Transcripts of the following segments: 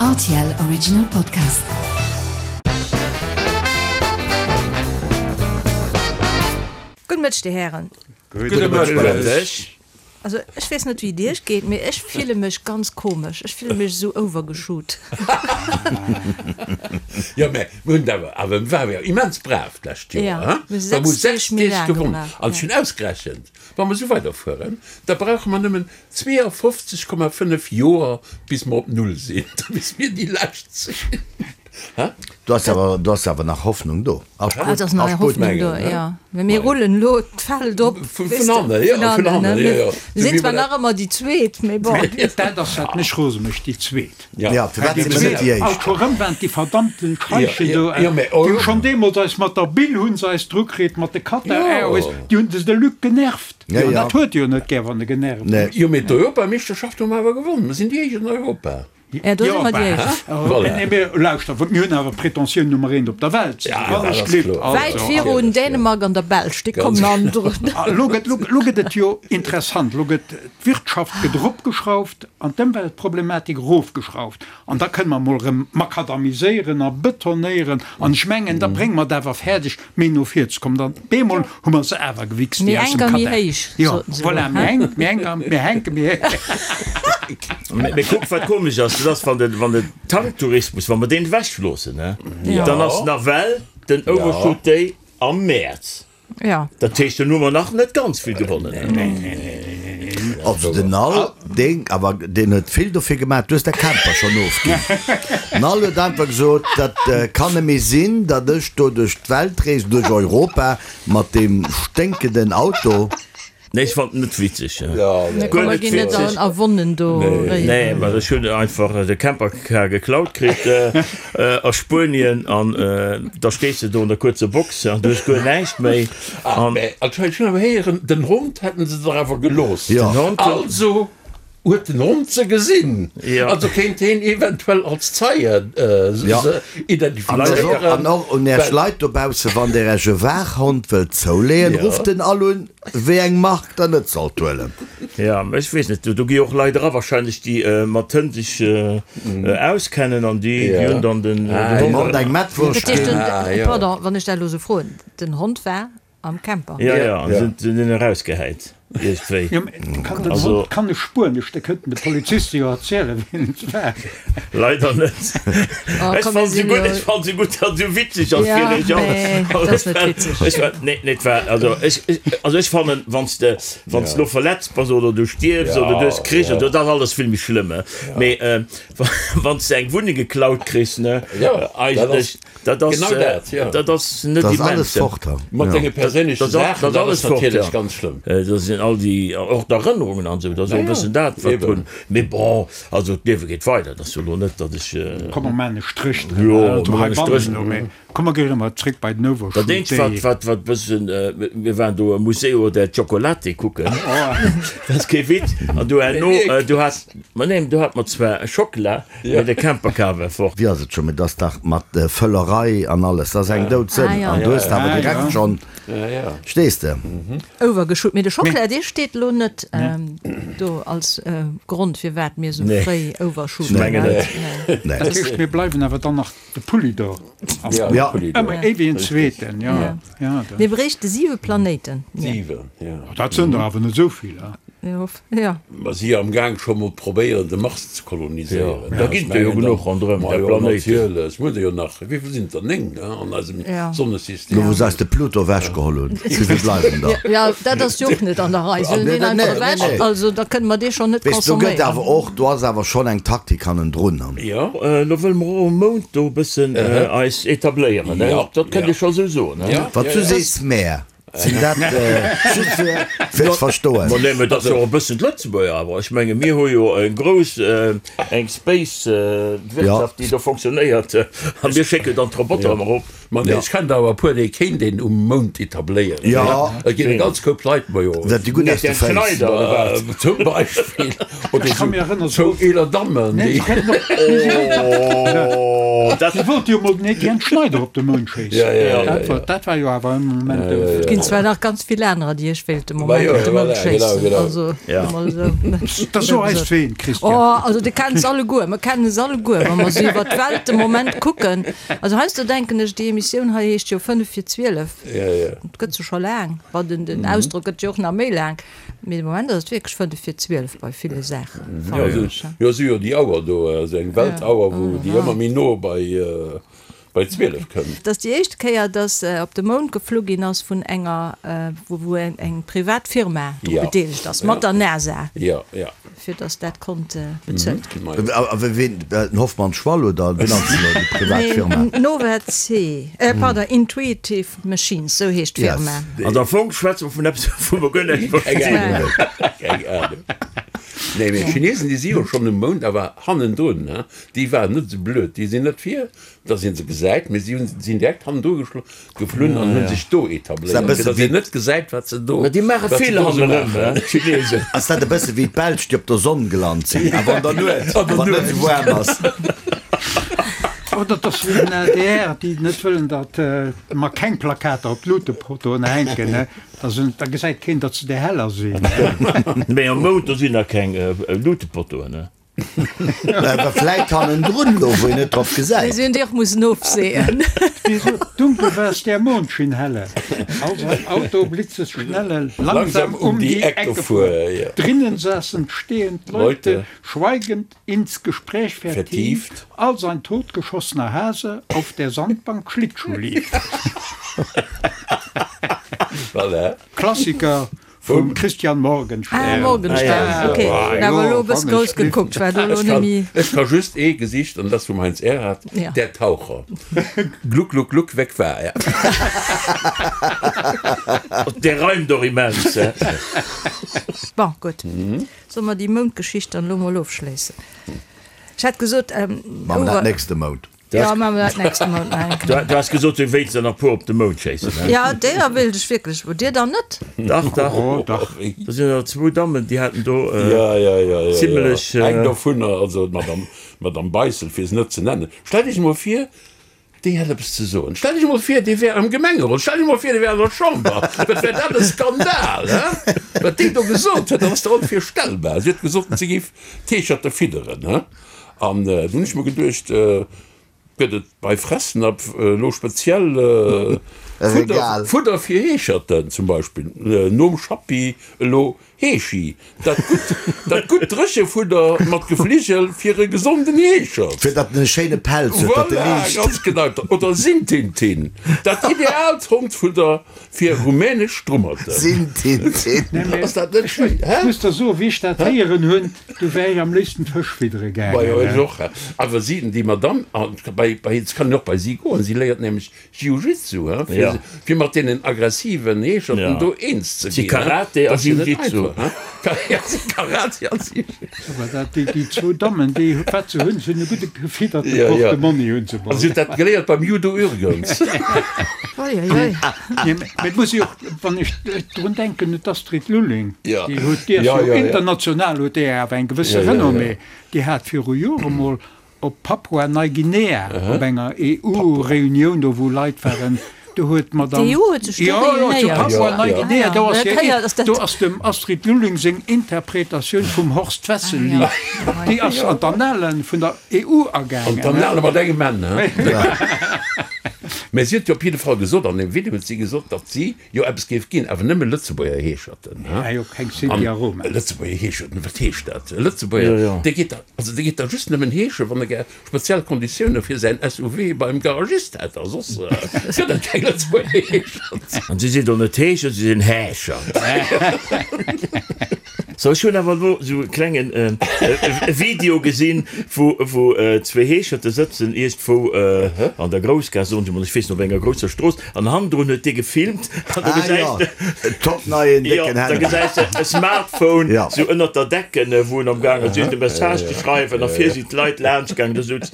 Rtl Original Podcast. Gudde Mëtteg, Dir Hären. Gudde Mëtteg. Also ech weess net wéi et iech geet, mee ech fille mech ganz komesch. Ech fille mech esou overgeshoot. Jo, mä mir hunn et awer, awer mir ware jo immens brav d'lescht Joer, Ja, hein? mir hu Mir hu 6 Deeg 6 méi Deeg laang gewonnen. gemaach, An ech ja. hunn ausgerechent, wa mer esou weiderfueren, da brauche mer nëmmen 52,5 Joer bis mer op Null sinn, da bis mir déi lescht sinn. Hä? Do ass awer, do ass awer nach Hoffnung do. Ass Ah, et ass nach gutt, ass gutt. Hoffnung do, Mengen, jo. Mä mir rullen elo d'Feld op, Vun weess de, hannen, jo, vun vun hannen, hannen, ne? jo, jo. Mir sinn zwar nach ëmmer déi Zweet, mee bon. Dat ass wat mech rose mécht, déi Zweet. Ja, firwat si mir net déi Alt Éischt? scho rëm waren déi verdammten Scheichen do, Jo, mä déi hu schonn deemools eis mat der Bill hu se eis dru kritt, mat de Qatar Airways, déi hunn de Luc genervt. Ja, An ja. dat huet e jo net gär, wann e genervt Nee. ass. Jo, mee d'Europameeschterschaft hu mer awer gewonnen. Mer sinn déi Éischt an Europa. Ja, do si mer déi Éischt. Voilà. Nee, mee lauschter, mir hunn awer Pretentioun Nummer eent op der Welt ze sinn. Ja, dat ass kloer. Wäit virun Dänemark an der Belsch, déi kommen an drun. Elo gëtt, elo gëtt et jo interessant. Elo gëtt d'Wirtschaft gëtt eropgeschrauft an d'Ëmweltproblematik erofgeschrauft. An da kënne mer emol erëm makadamiséieren a betonéieren. An ech mengen, da brénge mer et awer fäerdeg, méi no vir ze kommen. Dann bemol hu mer se awer gewichst, Méi déi aus enk dem a méi Katar. héich, Jo, soten se voilà, elo, méi hä? enk, méi enk a méi henke, méi héich. Mee kuck, wat komesch ass, dat ass, wann de, wann de Tanktourismus, wa mer deen ewechloossen, hä, dann ass nawell den Overshoot Day am Mäerz. Ja. Dat heescht, dann hu mer nach net ganz vill gewonnen. Also den Al, deen, awer deen huet vill dofir gemaach, du hues däi Camper schonn ofginn. Den Al huet einfach gesot, dat kann net méi sinn, datt ech do duerch d'Welt reesen, duerch Europa mat deem sténkenden Auto. Nee, ech fand en net witzeg. Mir Guer net ginn net witzeg. a Wonnen do réieren. Nee, well ech hunn einfach de Campercar geklaut kritt a Spuenien an da stees de do an der kuerzer Box an du hues guer näischt méi. Ah, An mä anscheinend, ech hunn awer héieren, den Hond hätten se der awer gelooss. Jo. den Hond. Also huet den Hond se gesinn. Jo. Also kéint heen eventuell als Zeie Jo. se An och, identifizéieren. an och un Äech Leit dobaussen, wann Der Äech e Waachhond wëllt zouleeën, Jo. rufft en all un. Wéi eng Mark der net sollt huelen. Ja, ech weess net, do gi och Leit era wahrscheinlech, déi mat Hënn sech auskennen an déi hunn dann den Dem Hond eng Mettwurscht Dat heescht, ginn. den, pardon, wann ech dat elo esou froen, den Hond war am Camper? Ja, ja, an se hunn en erausgehäit iergendwéi. Jo, mee kann den Also. Hond kann e Spuenesch, da kënnten de Poliziste jo erzielen, wien et war. Leider net. Oh, Ech komm, mir fann se sinn gutt, jo. ech fann se gutt, datt se witzeg ass Ja, fir iech all. mee dat ass net witzeg. Ech war, nee, nee, et war, also ech, ech, also ech fannen, wann s de, wann s de lo verletzt bass oder du stierfs oder du hues Krich, oder dat ass alles vill méi schlëmm, mee wann s de eng Wunneng geklaut kriss, ne, eigentlech, dat ass, Genau dat, jo. dat ass net Dat ass immens. alles fort dann. Mat denge perséinleche Dat ass, Saachen, dat ass dat alles ass fort, natierlech ja. ganz schlëmm. Dat sinn all déi, och d'Erënnerungen an esou, dat ass och e bëssen dat, wat drun, mee bon. Also d'Liewe geet weider, et ass jo elo net, datt ech. Komm mer maachen e Stréch Jo, drënner, also mer maachen e heibannen Stréch. elo, mee komm mer ginn erëm zréck bei den Dat eenzegt Overshoot wat, Day. wat, wat bëssen, mir waren do am Museo del Chocolate kucken, dat ass kee Witz, an do herno, do hat, ma neen, do hat mer zwar Schockela, mee de Campercar war fort. Wéi ass et scho, mee dat ass dach mat Völlerei an alles, dat ass eng Doudsënn an du hues awer direkt schonn, stees de? Overgeshoot, mee de Schockela dee steet elo net do als Grond firwat mir sou fréi overshooten. Ech mengen net. Nee. Dat heescht mir bleiwen awer dann nach de Pulli do. Ja. Ëmmer ee wéi en zweeten, jo. Ja. Mir bréichte siwe Planéiten. Siwen, jo. Dat sënn der awer net esou vill, he? Jo. Mer si jo am Gaang scho mol probéieren de Mars ze koloniséieren. Da ginn der jo genuch ronderëm Ma der jo, Planéiten. natierlech. Mir hunn der jo nach, wéi vill sinn et der? 9 an eisem Sonnesystem. Lo wou se eis de Pluto ewechgeholl hunn, wéi vill bleiwen der? Jo, dat ass jo och net an der Rei. Se hunn deen einfach ewech, also da kënne mer dee schonn net Weess, do gëtt consomméieren. awer och, do ass awer schonn eng Taktik hannendrun. Jo. Lo wëlle mer och um Mound do e bëssen eis etabléieren, ne? Dat kënnt ee scho sou soen, ne? Wat du sees, Mär. Sinn dat just fir fir ze verstoen. Ma nee, mä dat ass jo och e bëssen d'Lëtzebuerger awer. Ech menge mir hu jo eng grouss, eng Space Wirtschaft, déi do fonctionnéiert a mir schécken dann d'Roboter ëmmer erop. Ma nee, ech kennen der awer e puer, déi kéint een um Mound etabléieren. Jo. Et ginn e ganz Koup Leit, ma jo. Dat déi gutt aus de Etienne Féiss. Schneider. Zum Beispill. Oder Ech ka mir erënnern, zwou eeler Dammen, déi. Oh, dat. Si wollte jo mol den Etienne Schneider op de Mound schéissen. Ja, ja, ja, Dat war, dat war jo awer e Moment. Ginn. zwar nach ganz vill anerer, déi ech wéilt de Moment op de Mound schéissen. Also, emol esou. Da so eis ween, Christian. Oh, also de kennt se alleguer, mer kennen se alleguer, wa mer esou iwwer d'Welt de Moment kucken. Also heiansdo denken ech, déi Emissioun hei heescht jo 5 vir 12. Et gëtt se scho laang. Bon, den, den Ausdrock gëtt jo och nach méi laang. Mee de Moment ass et wierklech 5 vir 12 bei ville Saachen, fannen ech. Jo, si jo déi Auer do, esou eng Weltauer, wou déi ëmmer méi no bei. Bei 12 kënnt. Et ass déi éischt Kéier, datt op de Mound geflu ginn ass vun enger, wou eng privat Firma dru bedeelegt ass, mat der NASA, fir datt dat konnt bezuelt ginn. A wien, den Hoffmann Schwall oder wien ass elo déi privat Firma? Nee, Nova C, pardon, Intuitive Machines, sou heescht d'Firma. An am Fong schwätze mer vun eppes, wou mer guer näischt verstinn. Keng Ahnung. Nee, mee d'Chinesen, déi si jo schonn um Mound, awer hannendrun. Déi waren net esou blöd, déi sinn net vir, dass een se gesäit, mee si hunn sinn direkt hannendru geflunn an hunn sech do etabléiert, fir dass een net gesäit, wat se do Mä déi maache wat se vill do esou hannerëm, maachen. d'Chinesen. Ass dat e bësse wéi d'Belsch, déi op der Sonn gelant sinn, awer an der Nuet, wann et net esou waarm ass? Oder et ass wéi den adr, déi net wëllen, datt mer keng Plakater op d'Luutepotoen hänken, da gesäit keen, datt se där heller sinn. Mee am Mound, do sinn nach keng Luutepotoen. Awer vläit hannendrun elo, wou een net drop gesäit. Si hunn déi och mussen ofseeën. Dunkel war es, der Mond schien helle, als ein Auto blitzesschnelle langsam um die Ecke fuhr. Drinnen saßen stehend Leute, schweigend ins Gespräch vertieft, als ein totgeschossener Hase auf der Sandbank Schlittschuh lief. Voilà. Klassiker Vum Christian Morgenstern. Ah, Morgenstern, ok. Hunn awer elo e bësse grouss gekuckt, war do elo net méi. Ech ka just ee Gesicht, an dat ass vum Heinz Erhardt, Der Taucher. Gluck, gluck, gluck, weg war er. Dee reimt och immens. Bon, gutt. Solle mer déi Moundgeschicht dann elo mol ofschléissen? Ech hat gesot, Maache mer dat nächste Mount. Ja, maache mer dat nächste Mount nach eng Kéier. Du has gesot, du wéilts der nach puer op de Mound schéissen, he? Ja, deeër wéilt ech wierklech. Wou dir dann net? Dach, dach. Oh, dach. Do sinn der zwou Dammen, déi haten do Ja, ja, ja, ja, zimlech. ja. Eng dovunner, also d'Madame, d'Madame Beissel, fir se net ze nennen. Stellt Iech emol vir, déi hätt eppes ze soen. Stellt Iech emol vir, déi wär am Gemengerot. Stellt Iech emol vir, déi wär an der Chamber. Wat wär dat e Skandal, he? Wat déi do gesot huet, dat ass der onvirstellbar. Si huet gesot, si géif d'Heescherte fidderen, he? An du hunn ech mer geduecht, gëtt et bei Fressnapf elo speziell Fudder, Fudder fir Heescherten zum Beispill, nom Schappi elo Heeschi, dat gutt, dat gutt Dréchefudder mat Gefligel fir e gesonden Heeschert. Fir datt en e schéine Pelz huet, datt e Voilà, liicht. ganz genau. Oder Sintintin, dat ideaalt Hondfudder fir rumänesch Strummerten. Sintintin. Ass dat net schéin, hä? Ech muss der soen, wéi ech dat héieren hunn, Du wär ech am léifsten Fësch fiddere Majo, gaangen. ech och. Awer si, déi Madame, an bei, bei, et kann een och bei si goen, si léiert nämlech Jiu-Jitsu, hein, fir, Ja. fir mat deenen aggressiven Heescherten Ja. do eens ze Si ginn, hein. Karate a Dat ass jo net Jiu-Jitsu. einfach, hein. Ka, ja, si Karate a Jiu-Jitsu. Awer dat, déi, déi zwou Dammen, déi, wat se hunn, se hunn e gudde gefidderte Ja, ja. Portemonni hunn se An mol. si huet dat geléiert beim Judo Ürgens. Oi, oi, oi. Nee, mä et muss ee och, wann ech drun denken, un d'Astrid Lulling, Ja. déi huet, déi ass Ja, jo ja, ja. international huet déi awer eng gewësse Ja, ja, ja. Renommée, déi hat viru Jore mol op Papua-Neuguinea op enger EU-Reunioun do wou Leit waren, do huet d'Madame. D'EU huet sech do Jo, jo, zu réunéiert. Ja, ja. Papua-Neuguinea, do ass Ah, hir, ja, dat do ass dem Astrid Lulling seng Interpretatioun vum Horst Ah, Wessel-Lied, ja. déi ass an d'Annalen vun der EU agaangen. An d'Annale mat engem N, hein? Mä si huet jo op jidde Fall gesot, an deem Video huet si gesot, datt si jo eppes géif ginn, awer nëmme Lëtzebuerger Heescherten. Ah jo, keng Sinti a Roma. An Lëtzebuerger Heescherten, wat heescht dat? E Lëtzebuerger, Jo, jo. dee geet da, also dee geet da just nëmmen heesche wann e gär speziell Konditioune fir säin SUV beim Garagist hätt, a soss gëtt et keng Lëtzebuerger Heeschert. An si sinn do net Heescher, si sinn Häscher. So, ech hunn awer elo esou e klengen Video gesinn, wou wou zwee Heescherte sëtzen iergendwou an der Groussgaass, soen se mol, ech weess net, op enger grousser Strooss, an hannendrun huet dee gefilmt an do Ah gesäis jo, de, en top neien jo, décken da Handy. gesäis de e Smartphone Ja. sou ënnert der Decken, wou en am gaangen ass iergend e Message ze schreiwen a vir sinn d'Leit laanscht gaangen, do souz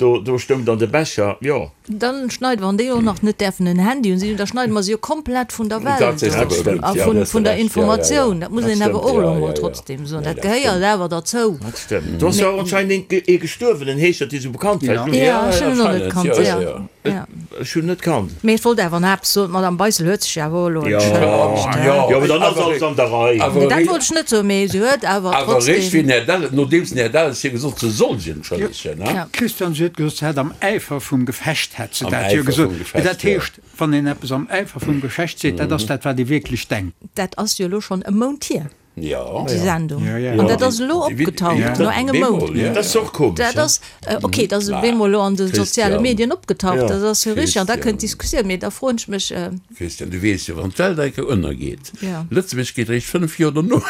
do do stoung dann de Becher, jo. Dann schneiden, wann déi och nach net däerfen en Handy hunn, da schneide mer se jo komplett vun der Dat Welt sees de of awer a gutt, ja, vun, hues de vun der Recht, ja, ja, ja. Informatioun. Dat muss Dat een awer stëmmt, och elo ja, emol ja, ja. trotzdem soen. Nee, Dat dat gehéiert stëmmt. awer derzou. Dat stëmmt. Do ass jo och anscheinend een, ee gestuerwen, en Heeschert, dee sou bekannt war. Ja. Ja, ech hunn en och net anscheinend, kannt, ja, ja, ja, ja. ja. Ech hunn net kannt. Mee ech wollt awer nach eppes soen, d'Madame Beissel huet sech jo awer och elo entschëllegt, he? Jo, mee dann ass alles an der Rei. Nee, dat wollt ech net soen, mee se huet awer Awer eréischt wéi trotzdem. den Här Delles, nodeems den Här Delles hir gesot, se soll sech entschëllegen, he? Christian, si huet gesot, se hätt am Äifer vum Gefecht hätt se Am dat jo Äifer gesot. vum Mee Gefecht, dat jo. heescht, wann een eppes am Äifer vum Gefecht seet, dat ass dat, wat ee wierklech denkt. Dat ass jo elo schonn e Mount hier. Jo. Déi Sendung. An dat ass elo opgetaucht, no engem Mount. Dat ass och komesch. Dat ass, okay, dat ass op eemol elo an de soziale Medien opgetaucht, dat ass jo richteg. An da kënnt d'Diskussioun. Mee da froen ech mech. Christian, du weess jo, wann d'Welt eng Kéier ënnergeet, Lëtzebuerg geet eréischt 5 Joer dono.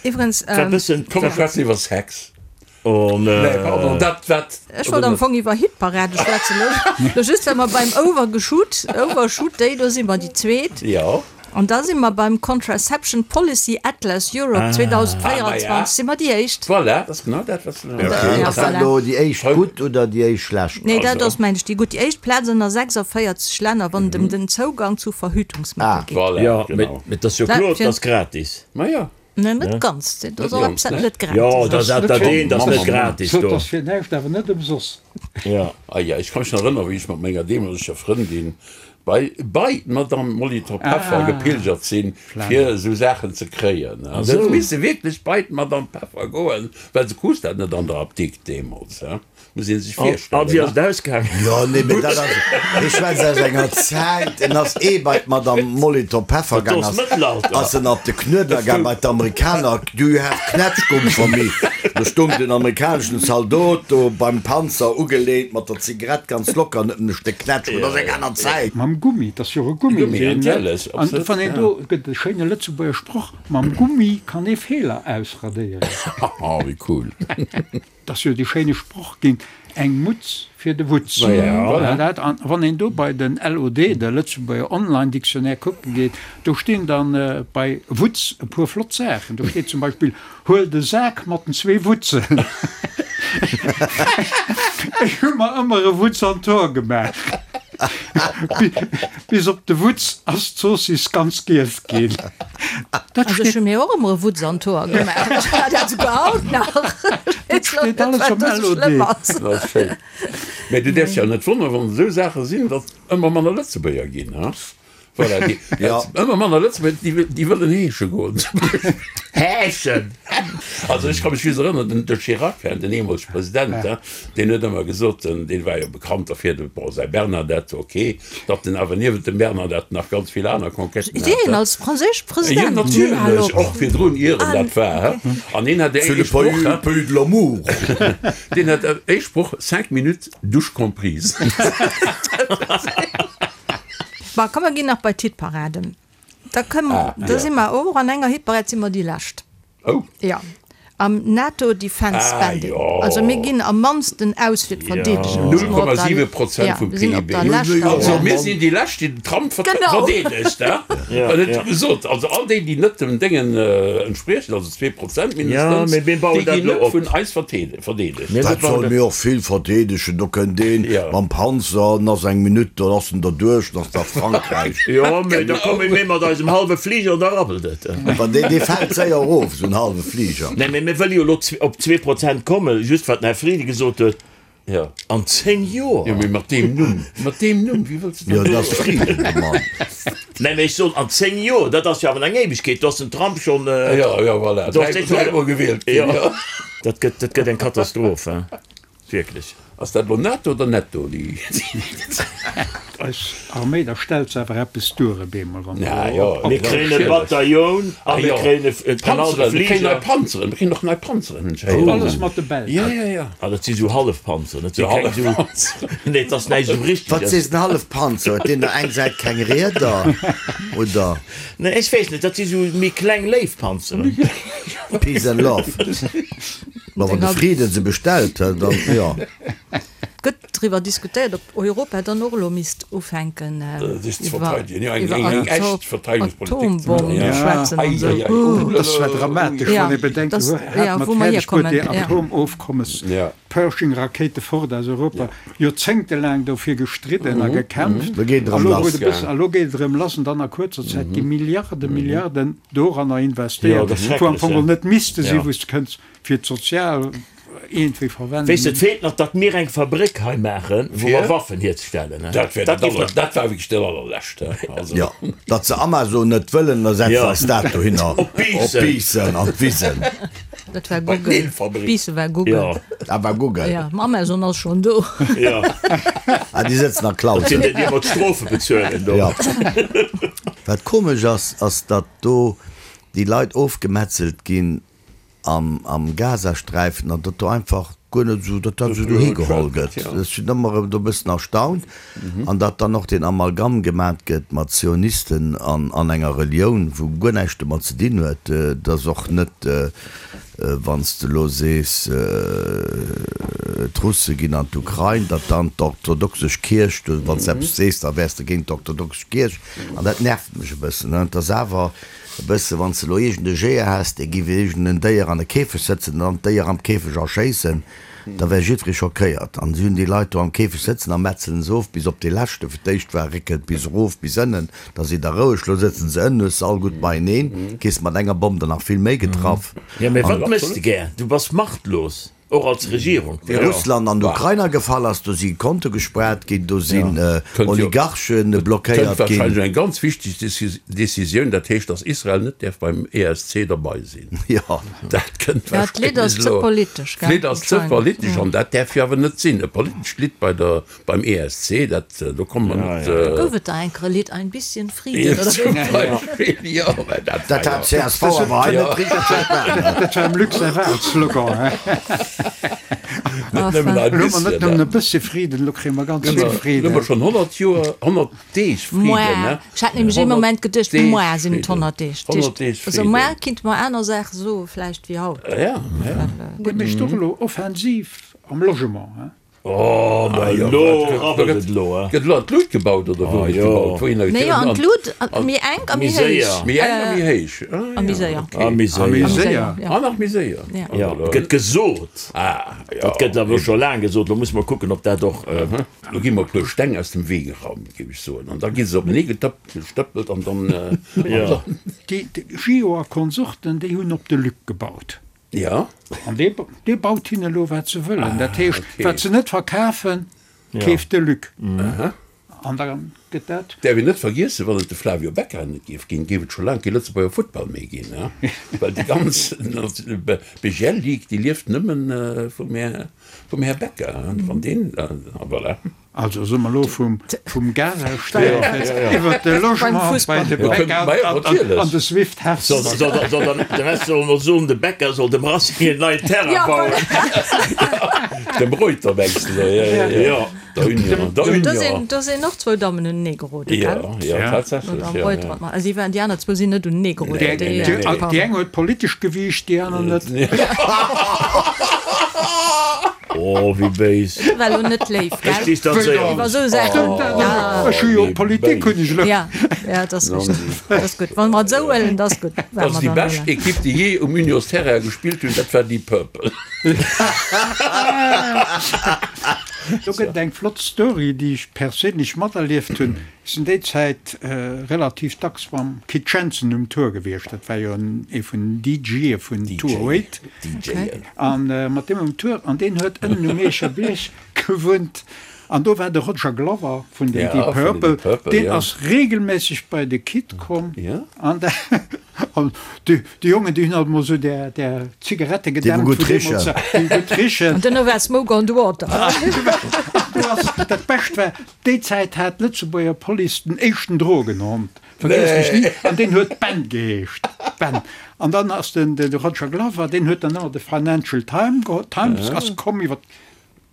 Iwwregens. Komm, mer schwätzen iwwer Sex. Oh nee, pardon, dat wat. Ech wollt am Fong iwwer Hitparade schwätzen, lo just well mer beim Overgeshoot, Overshoot Day, do si mer déi zweet. Jo. An da si mer beim Contraception Policy Atlas Europe 2024 si mer déi éischt. Voilà, dat ass genau dat, wat se. Okay, ass dat elo déi éischt gutt oder déi éischt schlecht? Nee, dat ass, mengen ech, déi gutt. Déi éischt Plaz ënner 46 Länner, wann et ëm den Zougang zu Verhütungsmëttel geet. Voilà, Jo, genau. mee et ass jo kloer, et ass gratis. Ma jo. Nee, net ganz. Dat ass och eppes, wat net gratis Jo, dat ass dat eent ass net gratis do. Dat ass fir näischt, awer net ëmsoss. Jo. Ah ja, ech ka mech nach erënneren, wéi ech mat menger deemoleger Frëndin bei bei d'Madame Molitor-Peffer gepilgert sinn, fir esou Saachen ze kréien. An se huet misse wierklech bei d'Madame Peffer goen, well se krus dat net an der Apdikt deemools. Muss een sech virstellen. An wéi ass et ausgaangen? Jo, nee, mee dat ass, ech schwätz aus enger Zäit, en ass ee bei d'Madame Molitor Peffer gaang, ass, ass en op de Knuedler gaang bei d'Amerikaner, Do you have Knätschgumm for me? Do stung den amerikaneschen Zaldot do beim Panzer ugeleent mat der Zigarett ganz locker an huet en e Stéck Knätschgumm. Dat ass eng aner Zäit. Mam Gummi, dat ass jo och e Gummi, Gummi, deen, natierlech, an absolut, wann een ja. do, gëtt e schéine Lëtzebuerger Sproch, Mam Gummi kann ee Feeler ausradéieren. Haha, wéi cool. 't ass jo dee schéine Sproch ginn, Eng Mutz fir de Wutz. Voilà dat. An wann een do bei den LOD, de Lëtzebuerger Online Dictionnaire, kucke geet, do stinn dann bei Wutz e puer flott Saachen. Do steet zum Beispill, Huel de Sak mat den zwee Wutzen. Ech hu mer ëmmer e Wutz an d'Hoer gemaach. Bis op de Wutz ass d'Zoossiss ganz giess ginn. Dat Also ech hu mir och ëmmer e Wutz an d'Hoer gemaach. Ech war dat souguer haut nach. Dat steet alles am LOD. Dat ass schéin. Mä du däerfs jo net wonneren, wann esou Saache sinn, datt ëmmer manner Lëtzebuerger ginn, ha? Voilà, déi, Ja. ëmmer manner Lëtzebuerger, déi, déi wëllen heesche goen. Heeschen! Also ech ka mech just erënneren, den, de Chirac, den eemolege President, ha, deen huet ëmmer gesot, den, deen war jo bekannt derfir, de, bon, säi Bernadette, ok, datt en awer niewent dem Bernadette nach ganz vill aner Conquêten hat. Deen als franséische Jo, President? natierlech, och virdrun, ier en dat war, ha. An hien hat C'est ee le Sproch, pays, ha, pays de l'amour. deen hat ee Sproch, Cinq minutes, douche comprise. Bon, komm mer ginn nach bei d'Hitparaden. Da kënne mer, da si mer och an enger Hitparad si mer déi lescht. Oh. Jo, am NATO Defense Ah, Spending. jo. Also mir ginn am mannsten aus fir d'Verdeedegung. Si mer op der- 0,7 Prozent Ja, vum mir sinn op PIB. der leschter Also Plaz. mir sinn déi lescht, déi den Trump vert Genau. verdeedegt, ha? Ja, En huet ja. gesot, also all déi, déi net dem Déngen entspriechen, also 2% Ja, mindestens, mee mir bauen déi dat ginn elo net op. vun eis verteede verdeedegt. Mir Dat bauen soll dat. mir och vill verdeedegen. Do kënnt een Ja. mam Panzer, en ass eng Minutt, dann ass en derduerch, dann ass da Frankräich. Jo, mee da komme mir mat eisem hallwe Fliger an da rabbelt et. Wa dee, dee fält séier erof, esou en hallwe Fliger. Nee, mee mir wëlle jo elo op 2% kommen, just wat den Här Frieden gesot huet, Ja. an 10 Joer. Jo, mee mat deem Numm, mat deem Numm, wéi wëlls de Jo, dat dat ass Frieden, de Mann. Nee, mee ech soen, an 10 Joer, dat ass jo awer eng Éiwegkeet, do ass den Trump schonn. Ja, ja, voilà, Do ass dee schonn. dräimol gewielt ginn, Jo. jo. Dat gëtt, dat gëtt eng Katastroph, hein. Wierklech. Ass dat elo netto oder netto déi? Eis Arméi, da stellt se awer eppes duer op eemol, wann Ja, se jo, op. Mir kréien e Bataillon a mir kréien e en hallwe Panzeren, mir kréien nei Fliger. Panzeren, mir kréien och nei Panzeren entschéieren. Alles mat de Belsch. Ja, ja, ja. Ah, dat si sou Hallefpanzeren, dat si keng sou. Hallefpanzeren. Nee, et ass näischt esou Wat Richteges. sees en Hallefpanzer? Huet deen der eng Säit keng Rieder, oder? Nee, ech weess net, dat si sou méi kleng Léifpanzeren. Peace and love. Ma wann de Frieden se bestellt, dann jo. Gëtt driwwer diskutéiert, ob Europa dann och elo misst ufänken Sech ze iwwer verteidegen, jo, eng, iwwer eng, eng echt Atom Verteidigungspolitik ze Atombommen maachen, ja. schwätzen Ei, an esou. ei, ei, oh, Dat ass zwar dramatesch, Ja, wann ee bedenkt, dass, wou ja, hat mat wou mer fäerdeg bruet, hierkommen, déi ja. Atomofkommes, Ja. Pershing-Rakéite fort aus Europa, joerzéngtelaang dofir gestridden a gekämpft, Lo geet et a erëm lo lass. huet e bëssen, a lo geet et erëm lass, an dann a kuerzer Zäit gi Milliarde, Milliarden doranner Jo, investéiert, dat ass wou am schrecklech, Fong ja. geholl net misste sinn, Ja. wou s de kënns fir d'sozial. iergendwéi verwenden. Weess de, et feelt nach, datt mir eng Fabréck hei maachen, wou mer Waffen hierzestellen. Dat wär dat aller, dat war wierklech dat allerlescht, he. Also. Jo, datt se Amazon net wëllen, da setze eis dat dohinner. Op Biissen. Op Biissen, an d'Wisen. Dat war Google. Biissen war Google. Jo. Dat war Google. Jo, ma Amazon ass schonn do. Jo. Ah, déi sëtzen a Dat sinn Clausen. déi, déi ëmmer d'Strofe bezuelen do. Jo. Wat komesch ass, ass datt do déi Leit ofgemetzelt ginn am am Gazasträifen an datt do einfach guer net esou, datt dat esou dohi geholl gëtt. Ech sinn ëmmer erëm do e bëssen erstaunt. An datt dann och deen Amalgam gemat gëtt mat Zionisten an an enger Relioun, wou guer näischt domat ze dinn huet. Et ass och net, wann s de elo sees, d'Russe ginn an d'Ukrain, datt dann d'orthodoxesch Kierch, wann s de eppes sees, da wäers de géint d'orthodoxesch Kierch. An dat nervt mech e bëssen. Et ass awer E bësse wann s de elo iergend e Jeeër häss, dee giff iergend en Déier an e Käfeg sëtzen an dann d'Déier am Käfeg erschéissen, da wär jiddweree schockéiert. An si hunn déi Leit do am Käfeg sëtzen a metzelen se of bis op dee leschte. Fir d'éischt war réckelt bis erof bis ënnen, da sidd der roueg, lo sëtzen se ënnen, hues se all gutt beieneen, kriss mat enger Bomm der nach vill méi getraff. Jo, mee wat méchs de gär? Du bass machtlos. Och als Regierung. Wéi Russland an d'Ukrain agefall ass, do si Konte gespaart ginn, do sinn Oligarche blockéiert Kënnt ginn. warscheinlech eng ganz wichteg Decisioun, dat heescht, datt Israel net däerf beim ESC derbei sinn. Jo. Dat kënnt Ja, d'Lidd ass warscheinlech ze elo. politesch, gell? D'Lidd ass ze politesch an dat däerf jo awer net sinn. E politescht Lidd bei der, beim ESC, dat, do komme mer net. Da gouf et da enker e Lidd, Ein bisschen Frieden, oder? Zum Beispill, jo, mä dat Dat war hat jo. csv awer hei net richteg verstanen. Dat war dem Luc säi Wahlslogan, he? Net nëmmen ein Elo hu mer net bisschen. nëmmen e bëssche Friden, elo kréie mer ganz vill Elo hu Friden. mer schonn 100 Joer, 100 Deeg Friden, Moar, ne? ech hat nämlech ee 100 Moment geduecht, Deeg moar sinn et Friden. 100 Deeg. 100 Deeg Also Friden. moar kinnte mer aner Saache soe vläicht wéi haut. Ja, ja. Dee mécht och elo Offensiv am Logement, he? Oh, ma elo rabbelt et elo, eh? Gëtt elo an d'Lut gebaut oder wou gëtt gebaut? Wouhinner Nee, gëtt an d'Lut, méi enk a méi héich. Méi enk a méi héich. A méi séier. A méi séier. séier. An nach méi séier. Jo, gëtt gesot. Dat gëtt awer scho laang gesot. Lo musse mer kucken, ob dat och. Lo gi mer e puer Steng aus dem Wee geraumt, géif ech soen. An da gi se openee getëppt, gestëppelt an dann. Déi Gio a Konsorten, déi hunn op de Luc gebaut. Ja. An dee, dee baut hinne elo wat se wëllen. Dat heescht, okay. wat se net verkafen, keeft de Luc. An da gëtt dat. Däerf een net vergiessen, wann et de Flavio Becca net géif ginn, géif et scho laang kee Lëtzebuerger Futtball méi ginn, he? Well déi ganz BGL Ligue, déi lieft nëmmen vum Här, vum Här Becca, he? Wann deen, a voilà. Also soe mer elo vum Gazasträifen iwwer de Logement bei de Bäcker an de Swift Hess. De Rest soll mer soen, de Bäcker soll dem Racing een neien Terrain bauen. Dem Reuter mengs de? Jo, der Union, der Union. Do sinn och zwou Dammen unenee geroden, gell? Jo, jo, tatsächlech. D'Madame Reuter an d'Ma-, si waren, déi aner zwou sinn net unenee geroden. Déi eng huet politesch gewiicht, déi aner net. Oh, wéi béis. Dat war elo net léif, gell? Ech distanzéiere Iwwer esou Saachen. Stëmmt dat? Ech hu jo Politik hunn ech elo. Ja, ja, dat ass richteg. Dat ass gutt. Wa mer et esou huelen, dat ass gutt. Dat ass déi bescht Ekipp, déi jee um Unionsterrain gespillt hunn, dat war Deep Purple. Do gëtt et eng flott Story, déi ech perséinlech materlieft hunn. Ech sinn déi Zäit relativ dacks mam Kit Jensen um Tour gewiescht. Dat war jo ee vun den DJe vun 208. A mat deem um Tour, an deen huet ënnen um Mierscher Bierg gewunnt. An do war de Roger Glover vun den Deep Purple, deen ass regelméisseg bei de Kit komm. An déi Jongen, déi hunn alt mol esou där Zigarette gedämpt, Déi wou gutt richen. Déi gutt richen. An duerno war Smoke on the Water. Dat Bescht war, Déi Zäit hat d'Lëtzebuerger Police den éischten Drogenhond, vergiess mech ni, an deen huet Ben geheescht. Ben. An dann ass den de Roger Glover, deen huet dann ëmmer de Financial Time geholl, Times ass komm iwwer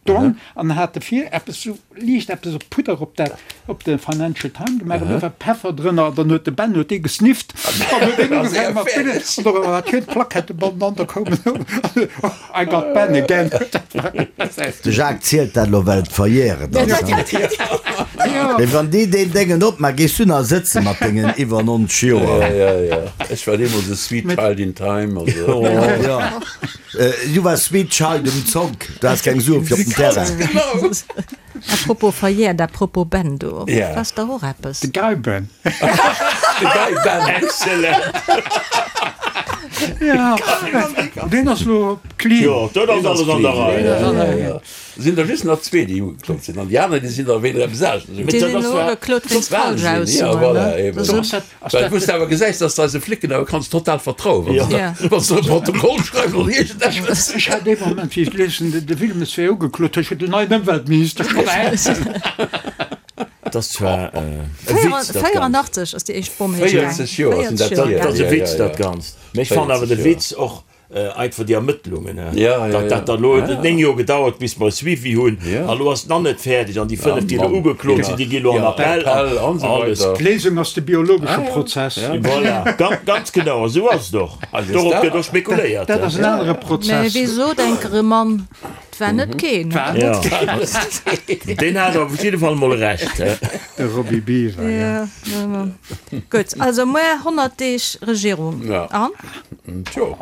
d'Donn an hat de vir eppes sou liicht eppes op Pudder op dat op de Financial Time gemaach an do war Peffer drënner an dann huet de Ben huet dee gesnifft an huet deen ugefaangen mat Pillen an do war schön d'Plaquette bannenanner, da koum en I got Ben again. De Jacques zielt dat elo well et verjähret ass. Mee wann déi deen Déngen opmaach, gees du nach sëtze mat dengen iwwer 90 Joer? Jo, jo, ech war deemools e sweet child in time. Also. Jo, du waars sweet child um Zonk, du has keng Sue fir op den Terrain. Genau. A propos verjährt, a propos Ben, do ass dach och eppes. De Guy Ben. De Guy Ben. Excellent. Ja, deen ass lo clean. Jo, dat ass alles an der Rei. Sinn der just nach zwee, déi ugeklot sinn, an déi aner, déi sinn der wéinst eppes aneschters ugeklot. Déi sinn elo ugeklot wéinst Falschaussoen, Ja, voilà, ne? eben. Well wou s de awer gesäis, dass de eise Flicken awer kanns total vertrauen, wa se wa se e Protokoll schreiwen oder iergendeppes. Ech hat ee Moment, wéi ech liesen, de Wilmes wär ugeklot, ech hunn den neien Ëmweltminister schonn Dat ass zwar e Witz, dat Ganzt. 84 ass déi éischt Bomm héich gaang. 40 Joer sinn dat hier. Dat ass e hier, Witz, ja, dat ja. Ganzt. Mee ech fannen awer 40 de Joer. Witz och einfach déi Ermëttlungen, Ja, ja, datt dat ja. dann elo huet et 9 Joer gedauert, bis mer e Suivi hunn, Ja. a lo ass et nach net fäerdeg an déi Ah, 5, déi elo Mann. ugeklot sinn, déi gi lo an Ja, Appell Appell an an esou alles. weider. D'Léisung ass de biologesche Ah, ja. Prozess. Ja. Voilà, ganz, ganz genau, esou ass et och. Also Dorop dat- gëtt och spekuléiert. Dat ass en anere Mä Prozess. wéi sot enker e Mann, 't war net keen. War Ja. net Deen hat op jidde Fall mol Recht. de Roby Biwer, ja. Ja, ja. Gutt, also muer 100 Deeg Regierung. Ja. An? Tjo.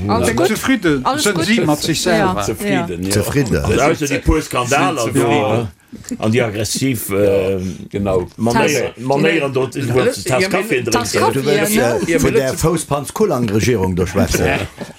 Alles gutt? Zefridde Alles sënn gutt? si mat sech selwer. Zefridden, ja. Zefridden. Also ausser déi puer Skandaler do an déi aggressiv Genau. Manéier, Manéieren do, wou se d'Taass Kaffi Tass drénken. Kaffi, Du wëlls ne? äh, vun der Fousspanz-Kullang-Regierung do schwätzen?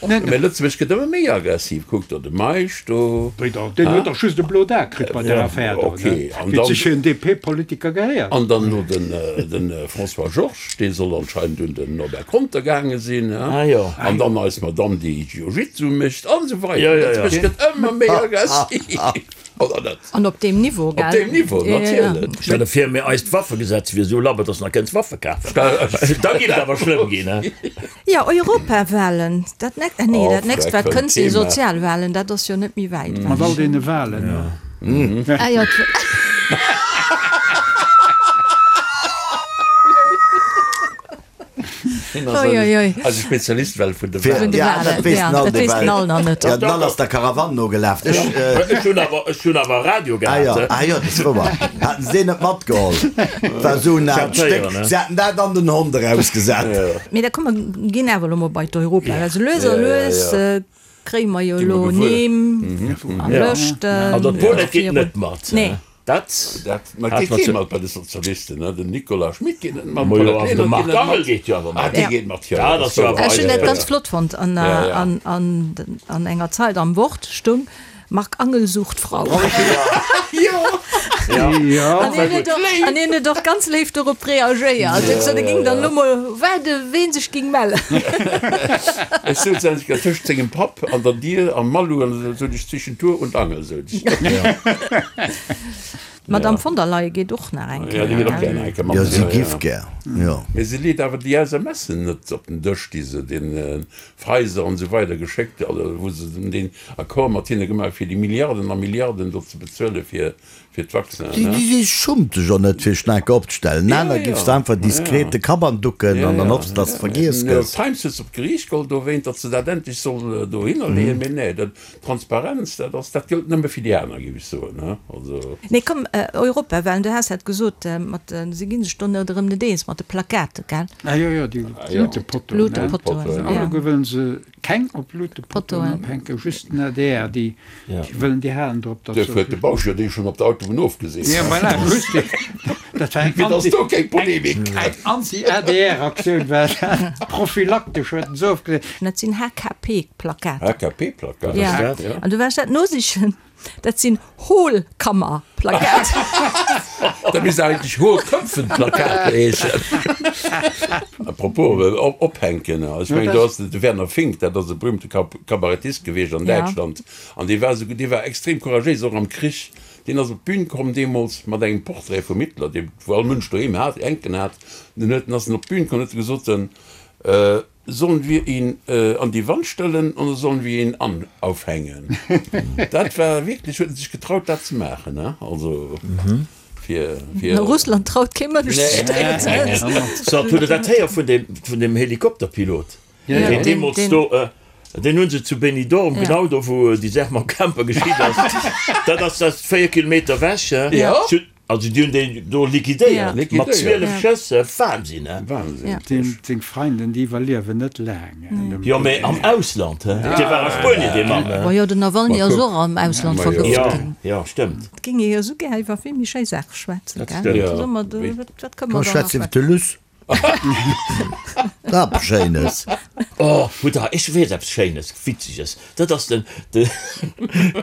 Mä Lëtzebuerg gëtt ëmmer méi aggressiv. Kuck der de Meisch do. Wéi da? Deen huet dach just e blot A kritt bei där Affär do, ne? Okay, an Wéi et dann- sech fir en DP-Politiker gehéiert. An dann elo den, den François Georges, dee soll anscheinend un den Norbert Conter gaange sinn, he? Ah jo. An dann eis Madame, déi Jiu-Jitsu mécht, an esou weider. Jo, jo, jo. Lëtzebuerg gëtt ëmmer méi aggressiv. Oder net? An op deem Niveau, gell? Op deem Niveau, natierlech. Stell der vir, mir eist Waffegesetz wier esou labber, dass nach kënns Waffe kafen. Da giff et awer schlëmm ginn, he? Jo, Europawahlen, dat nächst, äh nee, Oh, dat nächst wat freck, kënnt si Thema. Sozialwahlen, dat ass jo net méi wäit Mat ewech. all deene Wahlen. Ah jo, d'. Oi, oi, oi. Eise Spezialist well vun de Fir, Vun Wahlen. de ja, Wahlen, dat weess ja, den All dat weess den ewell. All nach net. Ja, den All ass der Karawann nogelaf. Ech, äh, Ech hunn awer, ech hunn awer Radio ah gehat, jo, he? ah jo, dat ass wouer. Haten se deen net matgeholl? Dat war esou en aalt Stéck. Se haten dat an den Hond erausgesat. Mee da komm, mer ginn awer elo mol bei d'Europa. Also lues a Ja, ja, lues ja. kréie mer jo Gi mer elo gewuer. Nimm a Lëschten. An dat Paulette geet net mat, he? Nee. Dat Dat ma hat geet mat kee ze. mat bei de Sozialisten, ne? Den Nicolas Schmit geet net mat, Ma jo, d'Paulette awer de Lenert geet Marc net Angel mat. geet jo awer Ah, mat. dee Ja. geet mat, jo, Dat dat ass ass jo wouer. awer Ech hunn eis dat ganz Spëtz. flott fonnt. An, Ja, ja. an, an, an enger Zeit am Wort stung, Marc Angel sucht Frau. Ja. Ja. An hien huet och, an hien huet och ganz léif dorop reagéiert. Huet gesot, e ging dann elo mol waarde ween sech ging mellen. Ech souz endlech grad tëscht sengem Papp an der Dier am Malou an esou sot ech zwischen Tour und Angel sot ech. D'Madame von der Leyen geet och nach eng Ja, déi Kéier, geet och gell? gär nach eng Kéier mat. Jo, si Ja, giff ja. gär, jo. Mee se leet awer déi SMSen net op den Dësch, déi se den Pfizer an esou weider geschéckt, also wou se den Accord mat hinne gemaach hu fir déi Milliarden a Milliarden do ze bezuele fir fir d'Vaccinen, Déi, ne? déi schummt sech och net fir Schnaken opzestellen. Ja, Aner ja. giffs de einfach diskret de Kapp anducken Ja, an dann ja. hoffs, dass de vergiess New York gëss. Times huet se op d'Geriicht geholl dowéint, datt se dat endlech soll dohinner leeën. Mee nee, dat, Transparenz, dat ass, dat gëllt nëmme fir déi aner, géif ech soen, ne? Also. Nee, komm, Europawahlen, du has dat gesot, mat, se gi sech do net erëm net eens mat de Plakaten, gell? Ah jo, jo, déi Luutepottoen, ne? Luutepottoen, ja. Alleguer wëllen se keng op Luutepottoen Pottoen. ophänken, just den adr, déi wëllen, déi halen drop, datt Duerfir huet de Bausch jo déi schonn op der Autobunn ofgesinn. Ja, voilà, just, dat war eng Fir datt Anti, do keng Polemik eng Anti-ADR-Aktioun war dat, prophylaktesch huet en se ofgesinn. Dat sinn HKP-Plakaten. HKP-Plakaten? Ja. Ja. An du waars dat nosichen. Dat sinn Hohlkammerplakate. Dat misst eigentlech Hohlköpfenplakat heeschen. A propos ophänken, ech mengen do ass de Werner Fink, dat ass e berühmte Kabarettist gewiescht an Däitschland, an dee war esou, dee war extrem couragéis, och am Krich. Deen ass op d'Bün komm deemools mat engem Portrait vum Hitler, dee wou all Mënsch doheem hat, hänken hat. Den huet, ass en op d'Bün komm an huet gesot, Sollen wir ihn an die Wand stellen oder sollen wir ihn an aufhängen? Dat war wierklech, huet en sech getraut dat ze maachen, ne? Also fir, fir. A Russland traut kee Mënsch sech dat ze. So, hutt Der dat héier vun deem, vun deem Helikopterpilot, deen deemools do, deen hu se zu Benidorm, genau do wou déi Saach mam Camper geschitt ass, dat ass dat 4 Kilometer ewech, Also déi hunn deen do liquidéiert mat 12 Schëss, Wahnsinn he! Wahnsinn. Seng Freinden déi iwwerliewen net laang. Jo mee am Ausland he, dee war a Spuenien dee Mann he. Majo den Nawalny ass och am Ausland vergëft ginn. Jo stëmmt. Et géing ee jo esou gär iwwer vill méi schéi Saache schwätzen, gell? Soe mer, wat kënne mer Komm da nach schwätz iwwer de schwätzen? Luss. Eppes Schéines. Oh, hutt der, ech weess eppes Schéines, Witzeges. Dat ass den, den,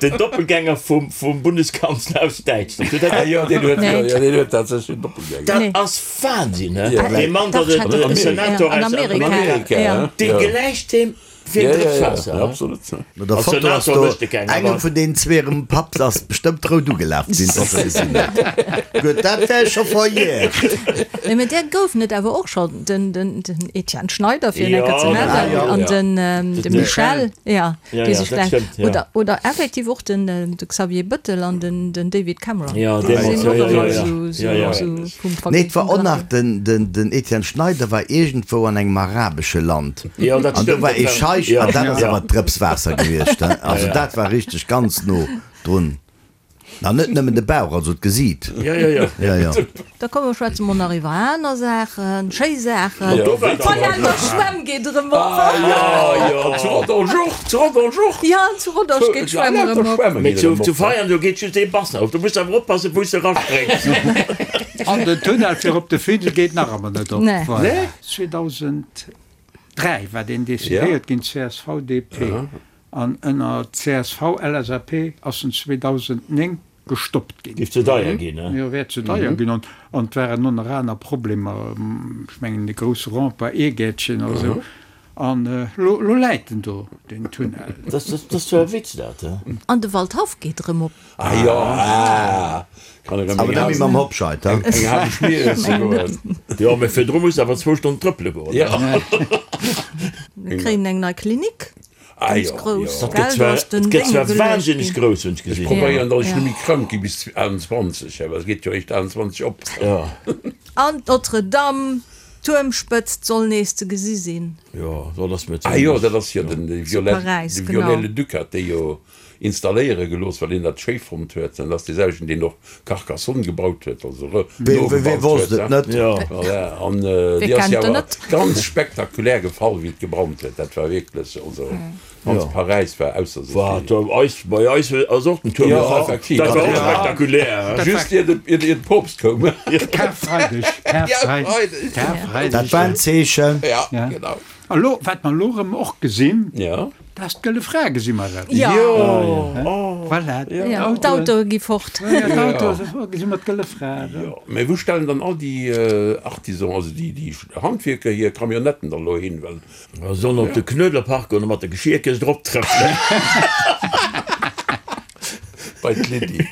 den Doppelgänger vum, vum Bundeskanzler aus Däitschland. Hutt der dat? Jo, deen huet, jo, jo, deen huet tatsächlech en Doppelgänger. Dat ass Wahnsinn, he? Ja. Dee Mann, dat e Senator An aus Amerika, Amerika, ja. dee gläicht deem wéi en Drëps Waasser, he? Absolut. No der Als Foto ass Senator do mécht e keng, engem awer. vun deenen zwee hirem Papp ass bestëmmt rout ugelaf sinn, datt e gesinn huet. Gutt, dat wär scho verjährt. Nee, mä där goufen et awer och schonn, den, den, den Etienne Schneider, fir en Ja, enker ze ja, nennen, ja. an den, de De Michel, ja, Ja, déi ja, sech dat gläich, stëmmt, ja. oder, oder effektiv och den, de Xavier Bëttel an den, den David Cameron. Ja, Déi deemools, sinn ja, och ja, ëmmer ja, ja. esou, esou, Ja, ja. esou vum Ver, Nee, et war vum och Drache. nach den, den, den Etienne Schneider war iergendwou an engem arabesche Land. Ja, dat An do stëmmt, war dat ee war, Scheich, ja, an dat ass ja. awer Drëps Waasser gewiescht, he. Also Ja, ja. dat war richteg ganz no drun. An net nëmmen de Bauch, also d'Gesiit. Ja, ja, ja. Ja, ja. Da komm mer schwätze mol nach iwwer aner Saachen, schéi Saachen. Ja, do war D'Veianer Schwämm geet erëm op. Ah jo, jo, zu Rodange och, zu Rodange och. Ja, zu Rodange geet d'Schwämm erëm op. Mee zu, zu Veianen, do geet just ee Bassin op. Do muss de awer oppassen, wou s de eraspréngs. An den Tunnel fir op de Findel geet nach ëmmer net op. Nee. Voilà. Nee? 2003 war deen decidéiert ginn, csv, DP. An ënner CSV-LSAP ass en 2009 gestoppt ginn. Géif ze deier ginn, ne? Jo, wär ze deier ginn. An et waren och nach aner Problemer, ech mengen de grousse Rempart Eegäertchen a sou. An elo läit en do, deen Tunnel. Dat ass zwar e Witz, dat, he? An de Waldhaff geet erëm op. Ah jo, ah, kann erëm Awer net méi mam Hobscheid, he? eng hal Schmier esse goen. Jo, mee virdru muss de awer zwou Stonnen trëppele goen. Ja. Mir kréien eng nei Klinik. Ah Ganz jo, grouss, jo. Dat gëtt gell? Do zwar, ass den dat gëtt Dénge zwar geluecht wahnsinneg ginn. grouss, hunn ech Ech gesinn. probéieren, datt ech Ja. net méi krank gi bis 28, awer et geet jo eréischt 28 op. Ja. An d'Notre-Dame, d'Tuermspëtzt soll nees ze gesi sinn. Jo, dat ass mir Ah jo, zimlech. dat ass jo den de Zu Viollet, Paräis, de genau. Viollet-le-Duc hat déi jo installéiere gelooss, well hien dat schéi fonnt huet. Dat ass dee selwechten, deen och Carcassonne gebaut huet, also re, Wee, wee nogebaut wosst huet, et net? Ja. Voilà, an Wee déi ass kennt jo en awer net? ganz spektakulär gefall, wéi et gebrannt huet. Dat war wierklech, also ganz Paräis war ausser sech. Wat, do eis, bei eis ass och den Tuerm Jo, gefall. effektiv. Dat war och Ja. spektakulär, he? Just ier de, ier de Poopst koum. Karfreideg, Karfreideg, Karfreideg. Dat war en Zeechen. Ja, Ja. genau. A lo, wat mer elo erëm och gesinn, Ja. dat ass d'Gëlle Fra gesi mer erëm. Ja. Jo, Voilà, Ja, d'Autoe gi fort. Ja, d'Autoe, gesi mer d'Gëlle Fra erëm. Jo, mä wou stellen dann all déi Artisans, also déi, déi Handwierker hir Camionnetten dann elo hin, well. Mer sollen op de Knuedlerpark goen a mat der Geschierkëscht erop trëppelen. Bei d'Lydie.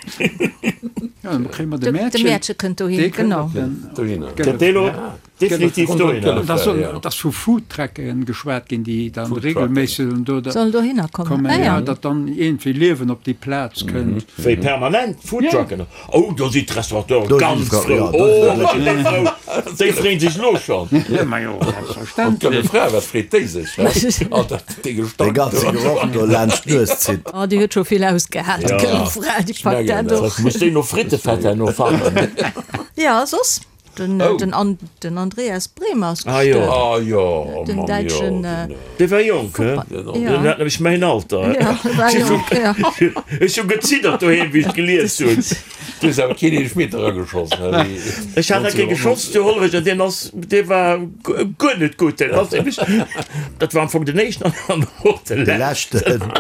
Ja, dann kréie mer de De Mäertchen. Mäertche kënnt dohin, Dee kënnt genau. op den. Dohinner. Dat dee lo Definitiv dohinner. Da soll, et ass vu Foodtrucken geschwat ginn, déi dann regelméisseg dann do Sollen dohinner kommen, kommen, ah ja, ja. datt dann iergendwéi Liewen op déi Plaz kënnt. Wéi permanent Foodtrucken? Oh, do sinn d'Restaurateuren Do sinn ganz d'Fra- frou. ja, do Oh, sinn do sinn déi frou. Déi freeën sech elo schonn. Ja, ma jo, An selbstverständlech. d'Gëlle Fra, wat freet déi sech, he? All dat, dee Dee Gestank ganze do. Geroch do laanscht d'Nues zitt. Oh, déi huet scho vill ausgehal, d'Gëlle Fra, déi packt mengen dat dat. och. Muss déi no Frittefett herno fannen. Ja, soss? Den, Oh. den, An, den Andreas Brehme ass Ah, jo. gestuerwen. Ah jo, oh Den Mann, jo, däitschen, den, Dee war jonk, he? den Ja. Den hat nämlech mäin Alter. Ja, war jonk, ja. Ech hu geziddert doheem, wéi ech gelies hunn. Du hues awer keen Eelefmeter erageschoss, he? Wéi Ech hat nach kee geschoss zu Hollerech an deen ass, dee war guer net gutt. Deen ass nämlech, dat war am Fong den éischten an och de De leschten. leschten.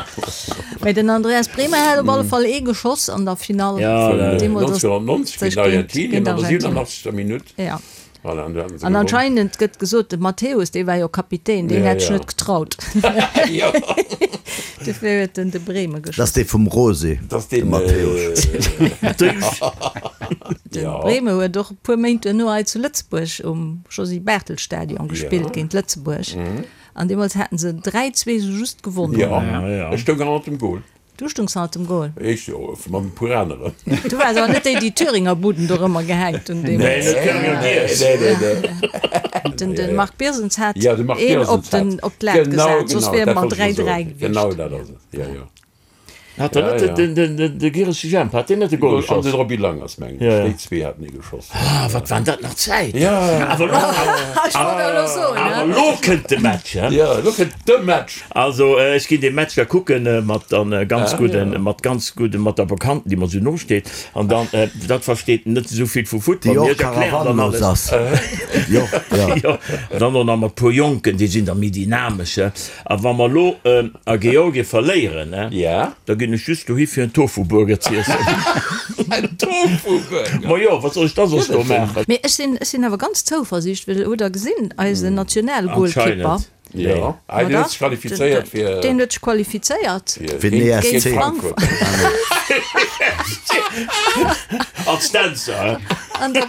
Mee den Andreas Brehme hat op alle Fall ee geschoss an der Finall. Ja, ja, ja. Deemools ass 1990 géint géint Argentinien an der Argentinien. 87. Minutt. Ja. Voilà, an do haten se An gewonnen. anscheinend gëtt gesot, de Matthäus, dee war jo Kapitän, deen Ja, hätt sech ja. net getraut. Jo. Dofir huet en de Brehme Dat geschoss. ass dee vum Rosé, Dat ass de deen, Matthäus. De Ja. Brehme huet och e puer Méint duerno hei zu Lëtzebuerg um Josy Barthel Stadion gespillt Ja. géint Lëtzebuerg. An deemools haten se 3, 2 sou just gewonnen. Ja, ja. ech stoung hannert dem Goal. Du stungs hannert dem Goal? Ech jo, mat e puer aneren. Du waars awer net déi, déi d'Thüringer Buden dorëmmer gehänkt hunn Nee, deemools. net d'Thüringer Giess. Nee, nee, nee. Den, den Marc Birsens hat Ja, de Marc een Birsens op den, hat. op d'Lat Genau, gesat, soss genau, wier dat mer wollt ech 3, elo 3 soen. gewiescht. Genau dat ass et, jo, jo. Hat der net den, den, den, de Giresche Jemp, hat deen net e Goal geschoss? An den Roby Langers, mengen ech. Déi zwee haten ee geschoss. Ah, wat waren dat nach Zäiten! Ja. Awer lo, awer lo kënnt de Match, he? Ja, lo kënnt de Match. Also, ech ginn dee Match da kucken mat dann ganz gudden, mat ganz gudden, mat der Bekannten, déi mer esou nosteet. An dann, dat versteet net esou vill vu Futtball, Déi mee och ech erklären dann karawanlos alles. ass. Jo, ja. Jo, dann och nach mat puer Jonken, déi sinn da méi dynamesch, he? A wa mer elo a Georgien verléieren, Ja. da ginn ech just dohi fir en Tofu-Burger z'iessen. En Tofu-Burger? Ma jo, wat soll ech da soss do maachen? Mee ech sinn, ech sinn awer ganz zouversiicht, well hutt Der gesinn, eisen Nationalgoalkeeper, Anscheinend. Jo, ah, deen huet sech qualifizéiert fir. Deen huet sech qualifizéiert. Fir den ESC. Géint Frankfurt. Als Dänzer, hä? An der,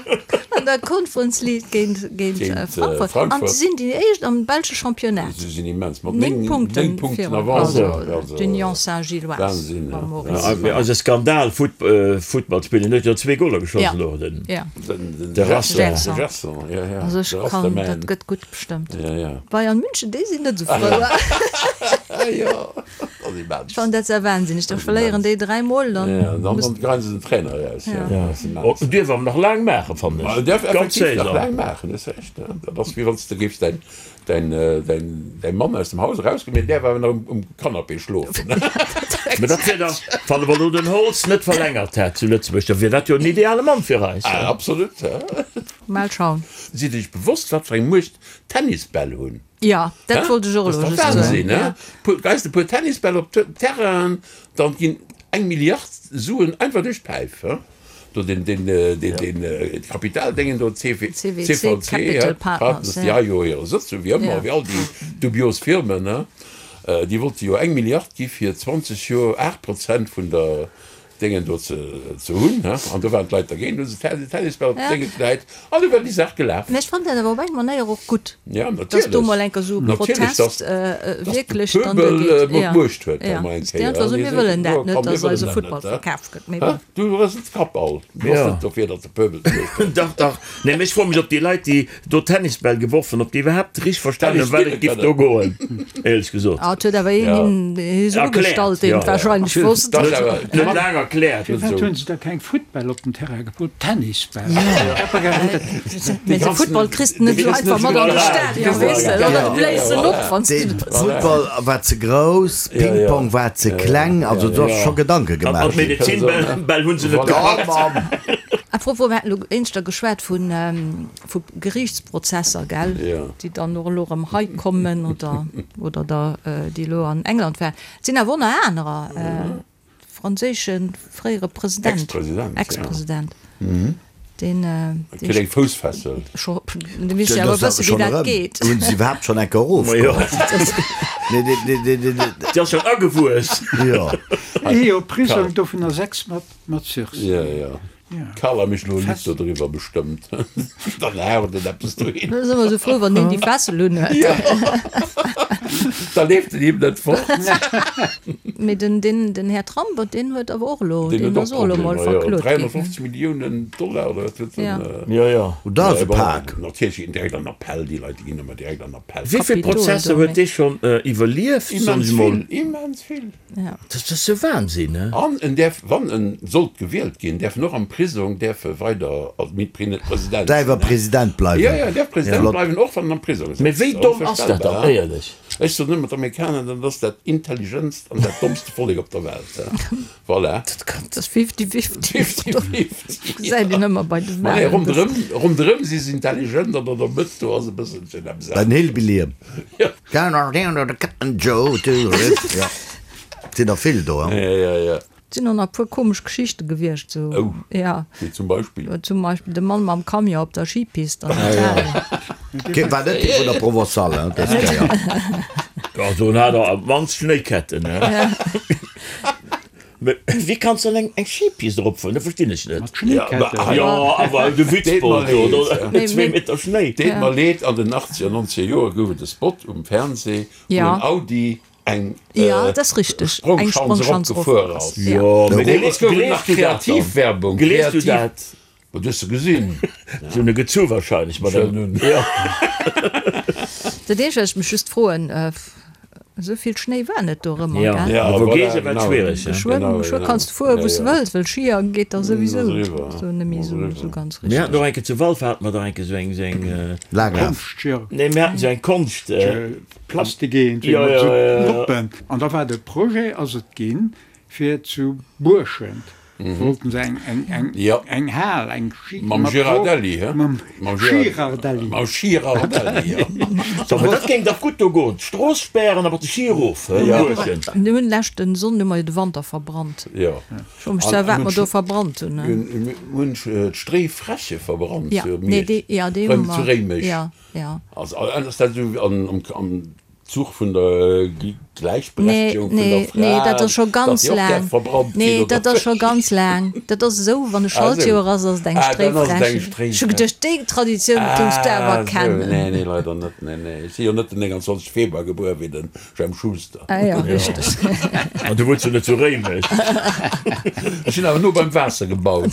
an der Conference League géint, géint Frankfurt. An se sinn déi éischt am belsche Championnat. Se sinn immens, mat 9 Punkten 9 Punkten virun. Avance. Also d'Union Saint-Gilloise Wahnsinn, mam Maurice. Also Skandal, Futtball spillen, huet jo zwee Goler geschoss elo, den. Ja. De Gerson. Gerson, ja, ja. Also ech kann, dat gëtt gutt bestëmmt. Ja, ja. Bayern München, déi sinn net esou frou. Jo, dat ass immens. Ech fannen dat sehr wahnsinneg. Da verléieren déi 3 mol, dann. Ja, dann dann geien se den Trainer eraus. Ja, dat ass immens. Oh, dierf awer nach laang maachen, fannen ech. En dierf Ganz effektiv nach Saison. laang maachen, hues Recht. Dat ass wéi wann s de géifs däin däin däin däi Mann aus dem Haus erausgoen, mee en däerf awer nach um um Canapé schlofen. Mä dat wier da, wann awer elo den Holtz net verlängert hätt zu Lëtzebuerg, da wier dat jo en ideale Mann fir eis. Ah, absolut. Mal schauen. Sidd Iech bewosst, wat fir eng Muecht Tennisbäll hunn? Jo, dat wollt ech och elo just soen. Dat ass dach Wahnsinn, he? Geis de puer Tennisbäll op Terrainen, dann ginn eng Milliard Suen einfach duerch d'Päif, he? Do den, den, den, den Kapitaldéngen do, CV, CVC, Capital Partners, déi ha jo hire Sëtz, sou wéi ëmmer, wéi all déi dubios Firmen, he? Déi wollte jo eng Milliard gi fir 20 Joer 8 Prozent vun der Déngen do ze hunn, he, an do waren d'Leit dergéint, hu se Tennisbäll op d'Dénge gedäit an du war déi Saach gelaf. Mä ech fannen dat awer op eng Manéier och gutt, Ja, dass do natierlech, mol enker esou e natierlech, Protest dass, dass de wierklech dann Pöbel duergeet. mol Ja, d'Muecht huet da ja, mol eng dass déi Kéier, einfach he, soen, déi mir soen, wëllen jo dat net, komm, mir dass wëllen eise dat Futtball net, he. verkaf gëtt. Mee He, bon. du rësels d'Kap all, du bass Ja. net dofir, datt de Pöbel d'Muecht huet. Dach, dach. Nee, mee ech froe mech, ob déi Leit, déi do Tennisbäll geworf hunn, ob déi iwwerhaapt richteg verstanen hunn, Tennis wat spille et giff do kënnen. goen, éierlech gesot. Ah, et huet awer een Ja. hien hie se Erkläert, ugestallt, deen ja. et wahrscheinlech wosst. Dat ass awer Net laang erkläert. Firwat hunn se da keng Footbäll op den Terrain geput, Tennisbäll? Mee de Football kriss de net esou einfach mat an de Stadion, weess de, oder du bléis en op, wann s de. Football war ze grouss, Ping-Pong war ze kleng, also do ass scho Gedanke An gemaach ginn. d'Medezinbäll hunn se net gepackt. Apropos, mir haten elo éinschter geschwat vu vu Geriichtsprozesser, gell, déi dann och elo erëm hei kommen oder oder der déi elo an England waren. Et sinn awer och nach anerer, de franséische fréiere President, Ex-President, deen, Kritt eng Foussfessel. Scho, de weess jo awer e bësse wéi dat geet. Hunn se iwwerhaapt schonn eng Kéier erofgeholl? Nee, dee, dee, dee, dee, dee. Déi ass schonn agewuess. Jo. Ee Joer Prisong, dovunner 6 mat Sursis. Jo, jo. D'Carla mécht elo e Lidd dodriwwer bestëmmt. Dann haut en eppes dohin. Da si mer esou frou, wann deen déi Fessel unhuet. Jo, da leeft en him net fort. Mee den, den, den Här Trump, deen huet awer och elo, Deen deen huet ass och och elo mol Problemer, jo. verklot ginn. 350 Milliounen Dollar oder wat huet en? Ja. Jo, jo. Oh, dat ass e Pak. Natierlech ginn direkt an Appell, déi Leit, déi ginn ëmmer direkt an Appell. Wéi vill Kapitol Prozesser do, huet mee. dee schonn iwwerlieft, soen Immens ech mol? vill, immens vill. Dat ass jo Wahnsinn, he? An en däerf, wann en sollt gewielt ginn, däerf en och am Prisong däerf e weider als President Däerf e President bleiwen. Jo, jo, en däerf President Flott. bleiwen, och wann en am Prisong sëtzt. Mee wéi domm ass dat dann, Onverstellbar. éierlech? Ech soen ëmmer, d'Amerikaner, dat ass dat intelligentst an dat dommste Vollek op der Welt. Voilà. Dat kann. Dat ass fifty-fifty. Fifty-fifty. Gesäit een ëmmer bei de Ma nee, Wahlen. ronderëm, ronderëm si se intelligent an an der Mëtt do ass e bësselchen eppes Den anescht. Hillbilly. Jo. Ja, sinn der vill do, hein? Ja, ja, ja. Et sinn och nach e puer komesch Geschichte gewiescht, sou. Oh. Ja. Wéi zum Beispill? Zum Beispill de Mann mam Camion op der Skipist an Italien. Kee war net dee vun der Provençale, hein, dës Kéier. Ja, do hat er op d'mannst Schnéiketten, hein. Mee wéi kanns de dann eng Skipist eropfueren? Dat verstinn ech net. Mat Schnéiketten. Jo, awer de Witzbold do, do zwee Meter Schnéi. Deet mer leed, an den 80er, 90er Joer gouf et e Spot um Fernseh, wou en Audi eng Sprongschanz eropgefuer ass. Jo, mee Deemools gouf et nach gleefs du dat dann? Kreativwerbung. Gleefs du dat? Wat hues de gesinn? Si hunn e gezu wahrscheinlech mat engem. Dat eenzegt, wat ech mech just froen. Esou vill Schnéi war net dorëmmer, gell? Ja, a Vogese war et schwiereg. Geschwënn, geschwë kanns de fueren, wou s de wëlls, well Schier geet da souwisou do net méi esou, esou ganz richteg. Mir haten och eng Kéier zu Walfer hate mer dach eng Kéier esou eng, esou eng. Laanglaf. Nee, mir haten esou eng Konscht. Plastik-Eent, wéi mat esou Noppen. An da war de Projet, ass et ginn, fir zu Buerschent wollten se eng eng eng Ja. eng Hal, eng Schi Mam mat Girardelli, hä? Mam Mam Girardelli. Mam Girardelli, ja. So, mä dat géing dach gutt do goen. D'Strooss spären a mat de Schi erof, hä? Ja. Buerschent. Mir hunn leschten Sonn hu mer jo de Wanter verbrannt. Ja. Ech froe mech zwar, wat mer do verbrannt hunn, ne? Mir hunn d'Stréifräche verbrannt Ja, zu nee, Miersch. déi, ja, déi hu Rëm mer. zu Réimech. Ja, ja. Also, ass dat esou an, am, am Zuch vun der Gläichberechtegung vun der Fra, Nee, dat ass scho datt ganz déi och laang. däerf verbrannt ginn, Nee, oder dat ass scho ganz laang. Dat ass esou, wann e Ah, esou. Schaltjoer ass, ass et eng Ah, dann ass et eng Stréifrächen. Ech hu geduecht, déi Traditioun géings de awer Ah, esou. kennen. Nee, nee, leider net. Nee, nee. Ech si jo net den 29 Februar gebuer wéi den Jemp Schuster. Ah jo, richteg. An du wunns jo net zu Réimech. Ech sinn awer no beim Waasser gebaut.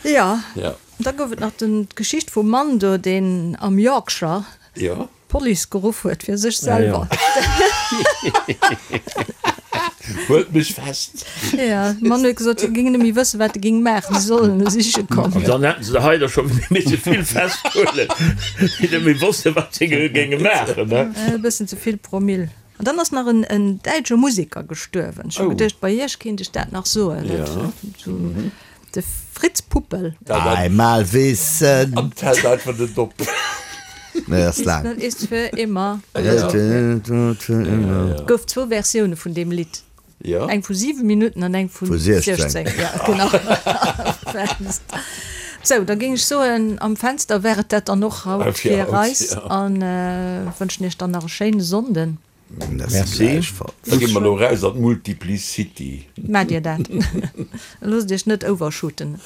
Jo. Ja. Da gouf et nach den, d'Geschicht vum Mann do, deen am Yorkshire Jo. D'Police geruff huet fir sech selwer. Huelt mech fest! Jo, de Mann huet gesot, hie géing net méi wëssen, wat e géing maachen, si sollen e siche kommen. An dann hätten se der hei der scho misse vill festhuelen, déi net méi wossten, wat se géinge maachen. E bëssen ze vill Promille. An dann ass nach en däitsche Museker gestuerwen. Ech hu geduecht, bei iech kéint ech dat nach soen. De Fritz Puppel. Einmal wissen. An d'hält einfach net op. Nee, ass laang. Wissen ist für immer. Gouf zwou Versioune vun deem Lidd. Eng vu 7 Minutten an eng vu 16. Ja, genau. Sou, da géing ech soen, am Fenster wär et dat dann och haut fir eis an wënschen iech dann nach e schéine Sonnden. Merci. Da gi mer elo raus an d'Multiplicity. Maacht Dir dat. Loosst Iech net overshooten.